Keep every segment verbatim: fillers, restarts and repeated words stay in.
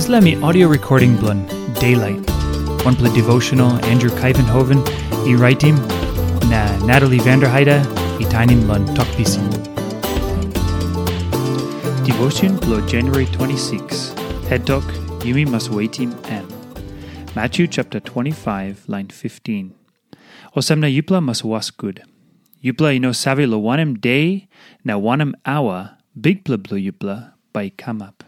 Dispela mi audio recording bilong Daylight, wanpela devotional Andrew Kaivenhoven i raitim, na Natalie Vanderheide i tainim long Tok Pisin. Devotion bilong January twenty-six, head tok, yumi mas wetim em. Matthew chapter twenty-five, line fifteen. Olsem na yupela mas was gut. Yupela i no save long wanem de na wanem aua Bikpela bilong yupela bai i kamap.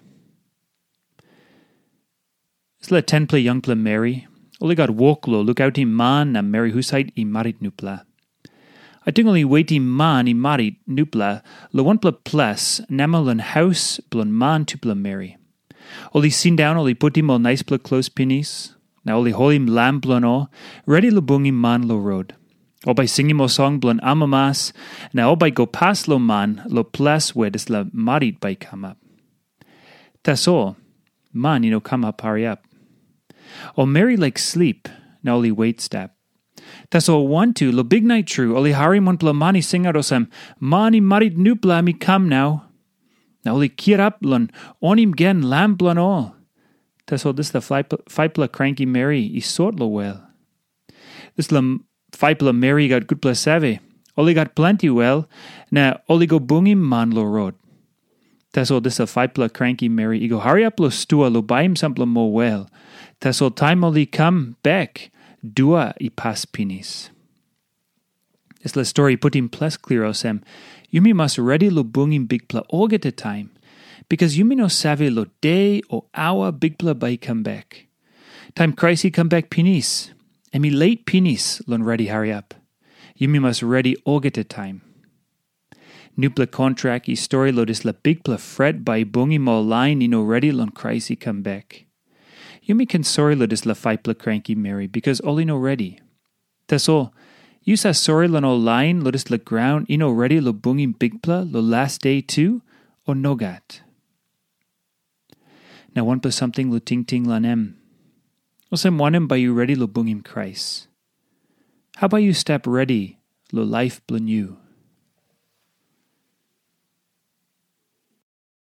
Dispela tenpela yangpela meri, ol i gat wok long lukautim man na meri husat i marit nupela. Ating ol i wetim man i marit nupela long wanpela ples namel long haus bilong man tupela meri. Ol i sindaun, ol i putim ol naispela klos pinis, na ol i holim lam bilong ol, redi long bungim man long rot. Ol bai singim ol song bilong amamas, na ol bai go pas long man long ples where dispela marit bai i kamap. Tasol man i no kamap hariap. Ol meri laik slip, na ol i wet stap. Tasol wantu long biknait tru ol i harim wanpela man i singaut olsem, "Man i marit nupela mi kam nau." Na ol i kirap long onim gen lam bilong ol. Tasol dispela faipela kranki meri i sot long wel. Dispela faipela meri i gat gutpela save. Ol i gat planti wel, na ol i go bungim man long rot. Tasol dispela faipela kranki meri i go hariap long stua long baim sampela moa wel. Tasol taim ol i kam bek, dua i pas pinis. Dispela stori i putim ples klia olsem, yumi mas redi long bungim Bikpela olgeta taim, bikas yumi no save long de o aua Bikpela bai i kam bek. Taim Krais i kam bek pinis, em i leit pinis long redi hariap. Yumi mas redi olgeta taim. Nupela kontrak i stori long dispela bikpela fret bai i bungim ol lain i no redi long Krais i kam bek. Yumi ken sori long dispela faipela kranki meri bikas ol i no redi. Tasol, yu save sori long ol lain long dispela graun i no redi long bungim Bikpela long las de tu, o nogat? Na wanpela samting long tingting long em. Olsem wanem bai yu redi long bungim Krais? Hau bai yu stap redi long laip bilong yu?